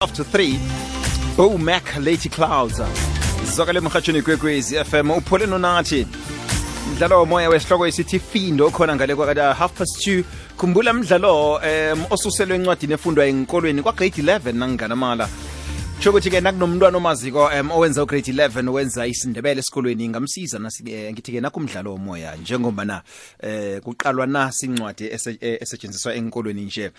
after 3. Bo Mac Lady Clouds. Zokale mkhatshweni kwekwezi FM uphole nonathi. Mdlalo womoya wesihloko esithi Findo khona ngale kwa 2:30. Khumbula mdlalo osuselwe encwadini efundwa enkolweni kwa grade 11 nangana mala. Chokuthi ke nakunomntwana omaziko owenza ugrade 11 wenza isindebele esikolweni ngamsiza ngithi ke nakumdlalo womoya njengoba na kuqalwa nasi incwadi esetshenziswa enkolweni nje.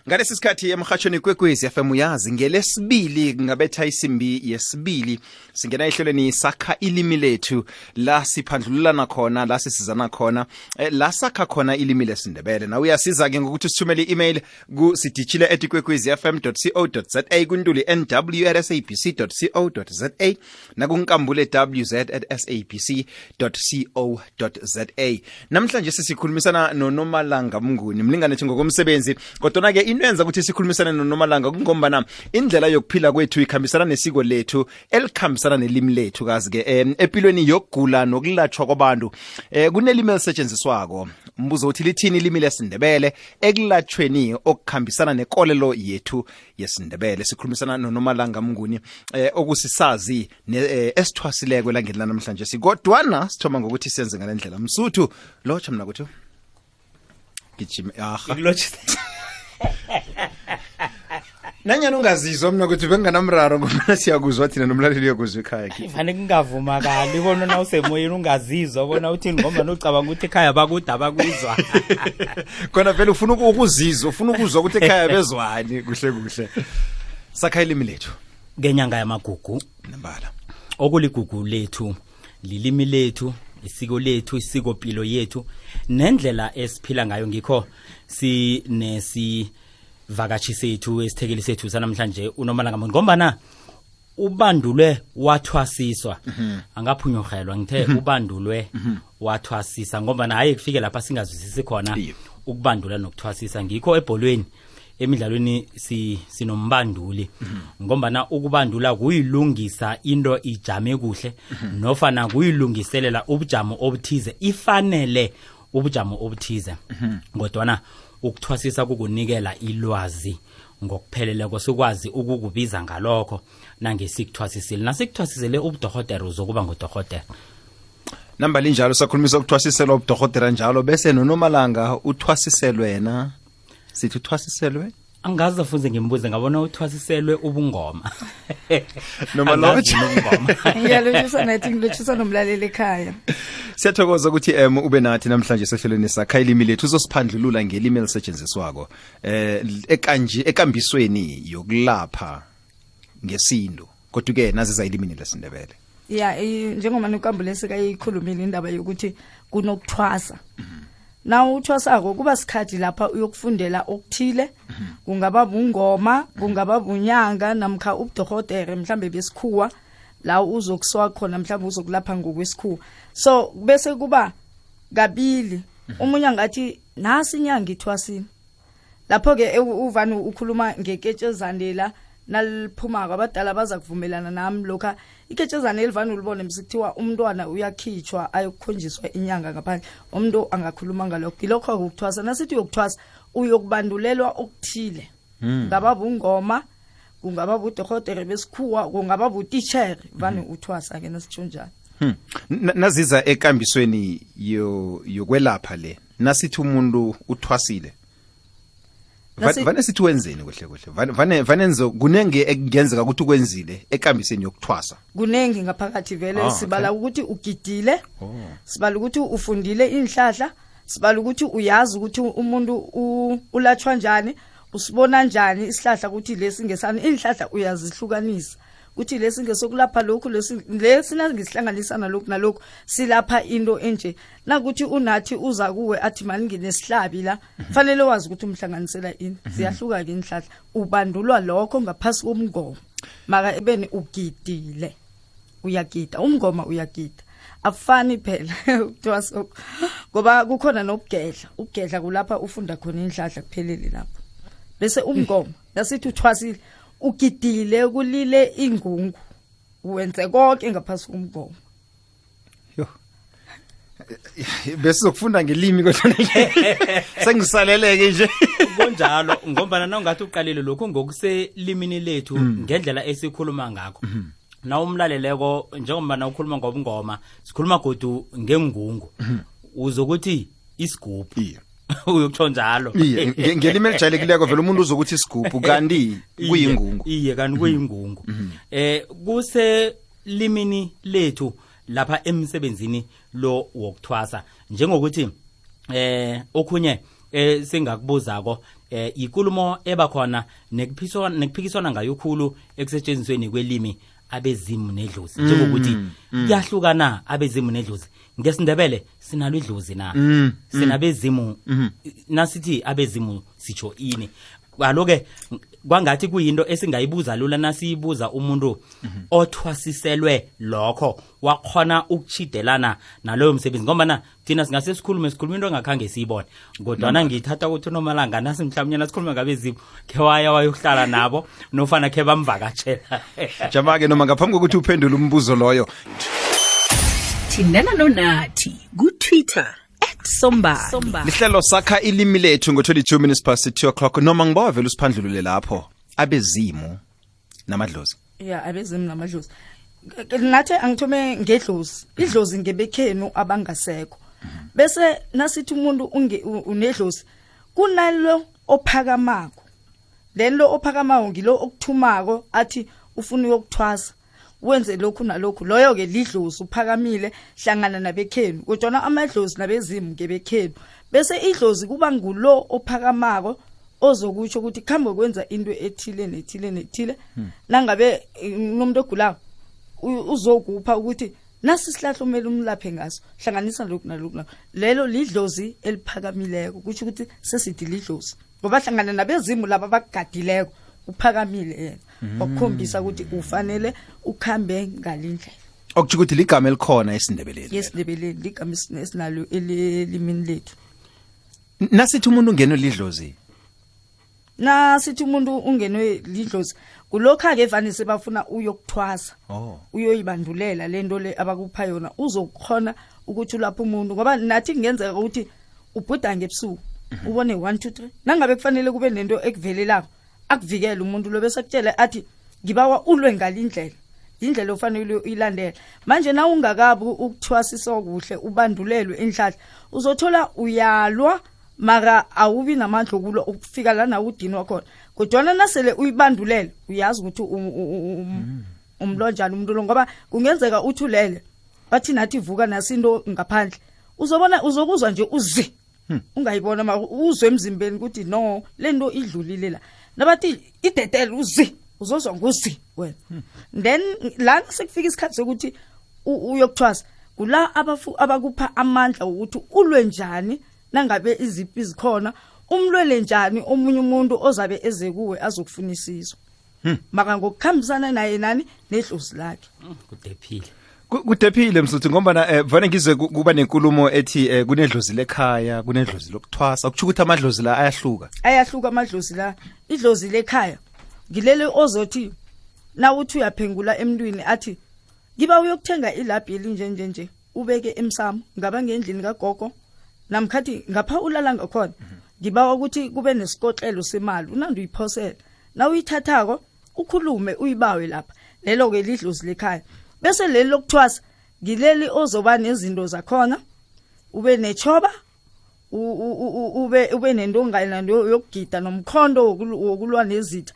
Ngalesi sikhathi emkhatshweni kwekwezi FM uyazi ngelesibili ngabetha isimbi yesibili singena ehlelweni sakha ilimi lethu la siphandlulana khona la sisizana khona la sakha khona ilimi lesindebele. Na uyasiza ke ngokuthi sithumele i-email ku sidijile@kwekwezfm.co.za kuntuli nw@sabc.co.za nakunkambule wz@sabc.co.za. Namhlanje sisikhulumisana noNomalanga Mnguni mlingane ethi ngokomsebenzi kodwa ke into yenza ukuthi sikhulumisane noNomalanga kungombana indlela yokuphila kwethu ikhambisana nesiko lethu elikhambisana nelimi lethu kazi ke empilweni yokugula nokulatshwa kwabantu kunelimi elisetshenziswako. Mbuzo uthi lithini ilimi lesindebele ekulatshweni okukhambisana nekolelo yethu yesindebele. Sikhulumisana noNomalanga Mnguni okusisazi esithwasileko langeni namhlanje sikodwana sithoma ngokuthi senze ngalendlela msuthu locha mina kuthi gijima ngikulocha nanyana ungazizwa mina ukuthi benganamraro ngoba siyakuzwa thina nomlaleli uyakuzwa ekhaya kufane kungavumakali ubona na usemoyeni ungazizwa ubona uthini ngoba nocabanga ukuthi ekhaya bakudaba kuzwa khona vele ufuna ukuzizwa ufuna ukuzwa ukuthi ekhaya bezwani kuhle kuhle sakha ilimi lethu ngenyanga yamagugu nambala okuligugu lethu lilimi lethu isiko lethu isikopilo yethu nendlela esiphila ngayo ngikho sinesivakashi sethu esithekeli sethu sanamhlanje uNomalanga Mnguni ngombana ubandulwe wathwasiswa angaphunyurhelwa ngithe ubandulwe wathwasisa ngombana hayi kufike lapha singazwisisi khona ukubandula nokuthwasisa ngikho ebholweni emidlalweni sinombanduli ngombana ukubandula kuyilungisa into ijame kuhle nofana kuyilungiselela ubujamo obuthize ifanele ubujamo obuthize kodwana ukuthwasisa kukunikela ilwazi ngokupheleleko sikwazi ukukubiza ngalokho nangesikuthwasisile nasikuthwasisele ubudokotela uzokuba ngudokotela namba linjalo sakhulumisa ukuthwasisela ubudokotela njalo bese noNomalanga uthwasiselwe wena sithi uthwasiselwe angazi afuze ngimbuze ngabona uthwasiselwe ubungoma noma lotsha ngiyalotshisa nathi ngilotshisa nomlaleli ekhaya. Siyathokoza ukuthi ube nathi namhlanje sehlelweni sakha ilimi lethu uzosiphandlulula ngelimi elisetshenziswako ekanje ekambisweni yokulapha ngesindo kodwa ke naziza ilimini lesindebele. Yeah, njengoba nokambulesi kayikhulumile indaba yokuthi kunokuthwasa. Na uthwasako kuba sikhathi lapha uyokufundela okuthile kungaba bungoma kungaba bunyanga namkha ubudokotela mhlambe besikhuwa la uzokuswa khona mhlambe uzokulapha ngokwesikhuwa so bese kuba kabili umunye ngathi nasi inyanga ithwasini lapho ke uvani ukhuluma ngeketshezandela naliphuma abadala baza kuvumelana nami lokha iketshezana elivana ulibone msikuthiwa umntwana uyakhitshwa ayokukhonjiswa inyanga ngaphandle umuntu angakhuluma ngalokho ilokho ukuthwasa nasithi uyokuthwasa uyokubandulelwa okuthile ngaba bungoma kungaba budokotela besikhuwa kungaba butitsher vane uthwasa ke nasitshonjana naziza ekambisweni yokwelapha le nasithi umuntu uthwasile vane sithi wenzeni kuhle kuhle vanenzo kunenge ekungenzeka ukuthi ukwenzile ekambiseni yokuthwasa kunenge ngaphakathi vele sibala ukuthi ugidile sibala ukuthi ufundile inhlahla sibala ukuthi uyazi ukuthi umuntu ulatshwa njani usibona njani isihlahla ukuthi lesi ngesani inhlahla uyazihlukanisa ukuthi lesi ngesokulapha lokhu lesi nangisihlanganisa nalokhu silapha into enje nakuthi unathi uza kuwe athi mani nginesihlabi la fanele wazi ukuthi umhlanganisela ini ziyahluka ke inhlahla ubandulwa lokho ngaphasi komngoma maka ebeni ugidile uyagida umngoma uyagida afani phela ukuthwasa ngoba kukhona nokugedla kulapha ufunda khona inhlahla kuphelele lapho bese umngoma nasithi uthwasile ugidile kulile ingungu wenze konke ngaphasi komgomo bese sokufunda ngelimi kodwa sengisaleleke nje kunjalo ngombana nawungathi uqalile lokho ngokuselimini lethu ngendlela esikhuluma ngakho na umlaleleko njengoba na ukhuluma ngobungoma sikhuluma godu ngengungu uzokuthi isigubhu uyokutsho njalo ngelimi elijayelekileko vele umuntu uzokuthi isigubhu kanti kuyingungu iye kanti kuyingungu kuse limini lethu lapha emsebenzini lo wokuthwasa njengokuthi okhunye singakubuzako ikulumo ebakhona nekuphikiswana ngayo khulu ekusetshenzisweni kwelimi abezimu nedlozi njengokuthi kuyahlukana abezimu nedlozi ngesindebele sinalo idlozi na sinabezimu nasithi abezimu sitsho ini aloke kwangathi kuyinto esingayibuza lula nasiyibuza umuntu othwasiselwe lokho wakhona ukuchidelana naloyo msebenzi ngoba thina singase sikhulume into engakhange siyibone kodwa ngithatha ukuthi nomalanga nasi mhlawumnye nasikhuluma ngabezimu ke wayohlala nabo nofana ke bamvakatshela jama-ke noma ngaphambi kokuthi uphendule umbuzo loyo thindana nonathi ku-Twitter @sombali lihlelo sakha ilimi lethu ngo-22 minutes past 2 o'clock noma ngibawa vele usiphandlulule lapho abezimu namadlozi abezimu namadlozi nathi angithome ngedlozi idlozi ngebekhenu abangasekho bese nasithi umuntu unedlozi kunalo ophakamako then lo ophakamako ngilo okuthumako athi ufuna ukuthwasa wenze lokhu nalokhu loyo ke lidlozi uphakamile hlangana nabekhenu kodwa amadlozi nabezimu ngebekhenu bese idlozi kuba ngulo ophakamako ozokutsho ukuthi khambe kwenza into ethile nethile nangabe umuntu ogulayo uzokupha ukuthi nasi sihlahlo kumele umlaphe ngaso hlanganisa lokhu nalokhu lelo lidlozi eliphakamileko kuthi ukuthi sesithi lidlozi ngoba hlangana nabezimu laba bagadileko uphakamile yena okukhombisa ukuthi ufanele ukhambe ngalindlela okuthi ukuthi ligama elikhona esindebeleni yesindebeleni ligama esinalo elimini lethu nasithi umuntu ungenwe lidlozi nasithi umuntu ungenwe lidlozi kulokho ake evanise bafuna uyokuthwasa uyoyibandulela lento le abakupha yona uzokhona ukuthi lapho umuntu ngoba nathi kungenzeka ukuthi ubhuda ngebusuku ubone 1 2 3 nangabe kufanele kube nento ekuvelelako akuvikela umuntu lo bese akutshela athi ngibawa ulwe ngalindlela indlela ofanele uyilandela manje na ungakabi ukuthwasisa kuhle ubandulelwe enhlahla uzothola uyalwa mara awubi namandla okulo ukufika lana udinwa khona kodwa nasele uyibandulele uyazi ukuthi umlonjana umuntu lo ngoba kungenzeka uthulele bathi nathi vuka nasinto ngaphandle uzobona uzokuzwa nje uzi ungayibona mara uzwe emzimbeni ukuthi no lento idlulile la nabathi idetele uzi uzozwa ngozi wena then la sekufika isikhathi sokuthi uyokuthwasa kula abakupha amandla ukuthi ulwe njani nangabe iziphi zikhona umlwele njani omunye umuntu ozabe eze kuwe azokufuna isizo maka ngokukhambisana naye nani nedlozi lakhe kudephile msuthu ngoba vane ngizwe kuba nenkulumo ethi kunedlozi lekhaya kunedlozi lokuthwasa kuthi ukuthi amadlozi la ayahluka amadlozi la idlozi lekhaya ngilele ozothi na uthi uyaphengula emntwini athi ngiba uyokuthenga ilabhi elinjenje ubeke emsamo ngaba ngendlini kagogo namkhathi ngapha ulala ngakhona ngibawa ukuthi kube nesikotlelo semali unandi uyiphosela na uyithathako ukhulume uyibawe lapha lelo ke lidlozi lekhaya bese leli lokuthwasa ngileli ozoba nezinto zakhona ube nechoba ube nendongana yokugida nomkhondo wokulwa nezitha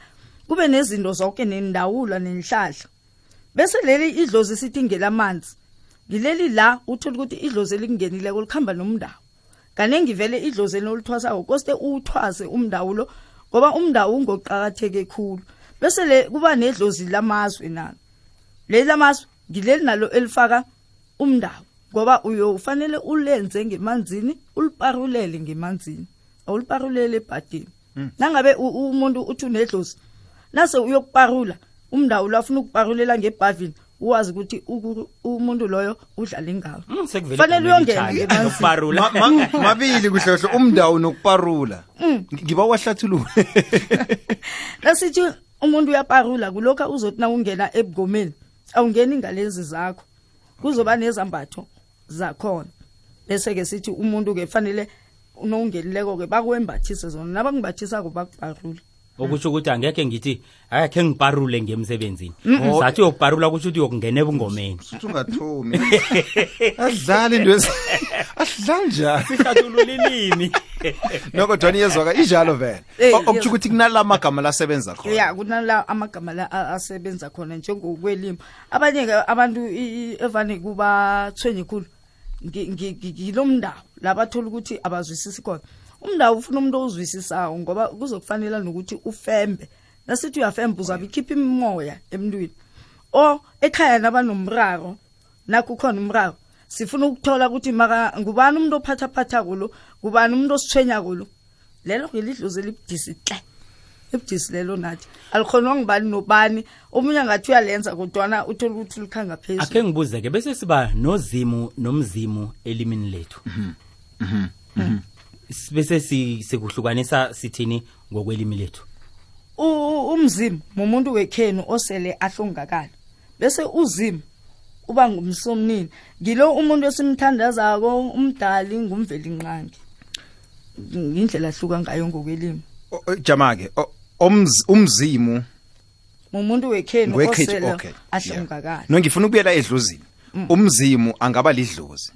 kube nezinto zonke nendawula nenhlahla bese leli idlozi sithi ngelamanzi ngileli la uthola ukuthi idlozi elingenile kulikhamba nomndawo kanengi vele idlozi elithwasa koste uthwase umndawulo ngoba umndawo ungoqhakatheke khulu bese le kuba nedlozi lamazwe nalo leli lamazwe ngileli nalo elifaka umndawo ngoba uyofanele ulenze ngemanzini uliparulele ngemanzini awuliparulele ebhadini nangabe umuntu uthi unedlozi nase uyokuparula umndawo lafuna ukuparulela ngebhavini uwazi ukuthi umuntu loyo udlala ngawo fanele uyongena ngemanzini mabili kuhlohlo umndawo nokuparula ngiba wahlathulule nasithi umuntu uyaparula kulokho uzothi na ungena ebugomeni awungeni ngalezi zakho kuzoba nezambatho zakhona bese ke sithi umuntu ke fanele unongelileko ke bakwembathise zona nabangimbathisako bakubharule okusho ukuthi angekhe ngithi akhe ngiparule ngemsebenzini sathi yokuparula kusho ukuthi yokungena ebungomeni ungathumi adlala into adlala njani sihlathulula ilimi noko Dwani yezwaka injalo vele okuthi ukuthi kunala amagama lasebenza khona ya kunala amagama la asebenza khona njengokwelimi abanye ke abantu evane kuba thwenye khulu ngilomndawo labathola ukuthi abazwisisi khona umndawo ufuna umuntu ozwisisayo ngoba kuzokufanele nokuthi ufembe nasithi uyafemba uzabe ikhipha imimoya emntwini ekhaya nabanomraro nakho khona umraro sifuna ukuthola ukuthi maka ngubani umuntu ophatha kulo ngubani umuntu osithwenya kulo lelo ngelidlozi elibudisi hle ebudisi lelo nathi alikhonwa ngibani nobani omunye ngathi uyalenza kodwana uthola ukuthi likhanga phezulu akhe ngibuzeke bese siba nozimu nomzimu elimini lethu bese sikuhlukanisa sithini ngokwelimi lethu umzimu umuntu wekhenu osele ahlongakala bese uzimu uba ngumsomnini ngilo umuntu esimthandazako umdali ngumveli nqangi indlela ahluka ngayo ngokwelimi jamake umzimu umuntu wekhenu osele ahlongakala no ngifuna ukubuyela edlozini umzimu angaba lidlozi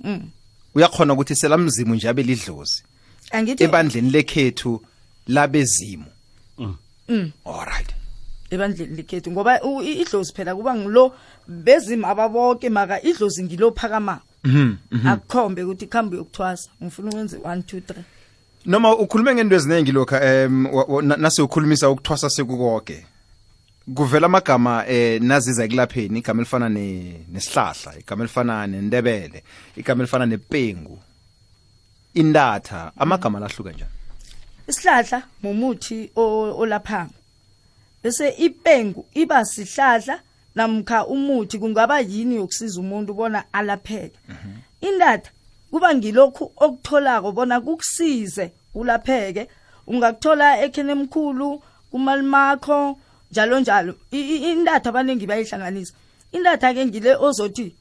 uyakhona ukuthi selamzimu nje abe lidlozi angithi ebandleni lekhethu labezimu alright ebandleni lekhethu ngoba idlozi phela kuba ngilo bezimu ababoke maka idlozi ngilo phakama akukhombe ukuthi khambe yokuthwasa ngifuna ukwenze 1 2 3 noma ukhulume ngento eziningi lokha nase ukhulumisa ukuthwasa sekukonke kuvela amagama naziza ekulapheni igama elifana nesihlahla igama elifana nendebele igama elifana nepengu indatha amagama lahluka njani isihlahla mumuthi olaphanga bese ipengu iba sihlahla namkha umuthi kungaba yini yokusiza umuntu bona alapheke indatha kuba ngilokhu okutholako bona kukusize ulapheke ungakuthola ekhene emkhulu kumalimakho njalo njalo indatha abanengi bayihlanganisa indatha ke ngile ozothi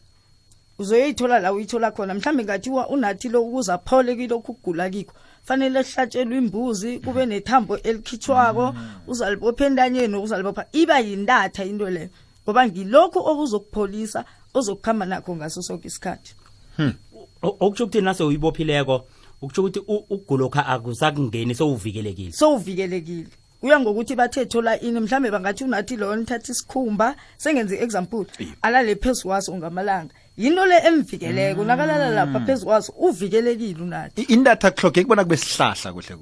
uzoyithola la uyithola khona mhlambe ngathiwa unathi lo ukuza phole kilokhu kugula kikho fanele ehlatshelwe imbuzi kube nethambo elikhitshwako uzalibopha endanyeni uzalibopha iba yindatha into le ngoba ngilokhu okuzokupholisa ozokukhamba nakho ngaso sonke isikhathi okuthi ukuthi nase uyibophileko ukuthi ukuthi ukugulokha akusakungeni sowuvikelekile uya ngokuthi bathe thola ini mhlambe bangathi unathi lo nithatha isikhumba sengenze example alale phezulu waso ngamalanga yinto le emvikeleko nakalala lapha phezulu waso uvikelekile unathi indatha kuhloge kubona kube sihlahla kuhle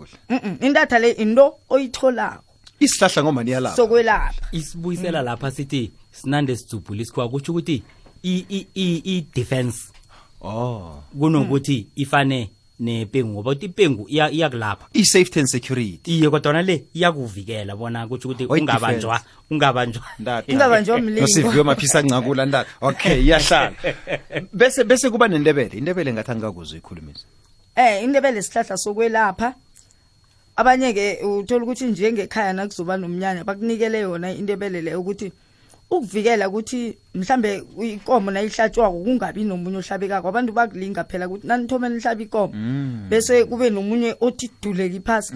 indatha le into oyitholako isihlahla ngoma niyalapha sokwelapha isibuyisela lapha sithi sinande sidzubhula isikwa kuthi ukuthi i defense kunokuthi ifane nepengu ngoba uthi ipengu iyakulapha i-safety and security iye kodwa le iyakuvikela bona kuthi ukuthi ungabanjwa mlingo nosiviwe maphisa ncakula ndatha okay iyahlala bese kuba nendebele indebele ngathi angakuzwe ikhulumisa indebele sihlahla sokwelapha abanye ke uthola ukuthi njengekhaya nakuzoba nomnyanya bakunikele yona indebele le ukuthi ukuvikela ukuthi mhlambe inkomo nayihlatshwako kungabi nomunye ohlabekako abantu bakulinga phela ukuthi nanithoma nihlaba inkomo bese kube nomunye othi duleki phasi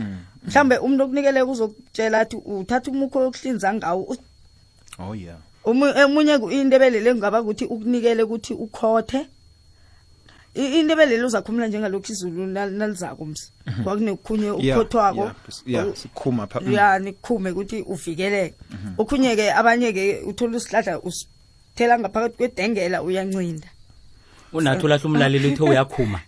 mhlambe umuntu okunikele uzokutshela athi uthatha umukho yokuhlinza ngawo omunye indebele le ngaba ukuthi ukunikele ukuthi ukhothe indebele uzakhumula njengalokhu izulu nalizako msi kwakunekukhunye ukhothwako sikhuma pha nikhume ukuthi uvikeleke okhunye ke abanye ke uthola isihlahla usithela ngaphakathi kwedengela uyancinda unathi lahla umlaleli uthe uyakhuma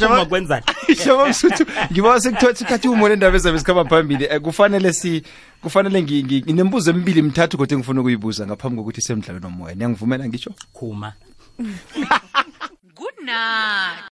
jama kwenzani shoma msuthu ngiba sekuthothi kathi umone indaba ezabe sikhamba phambili kufanele nginembuzo emibili emithathu kodwa ngifuna ukuyibuza ngaphambi kokuthi semidlalweni nomoya ngiyangivumela ngisho khuma Good night.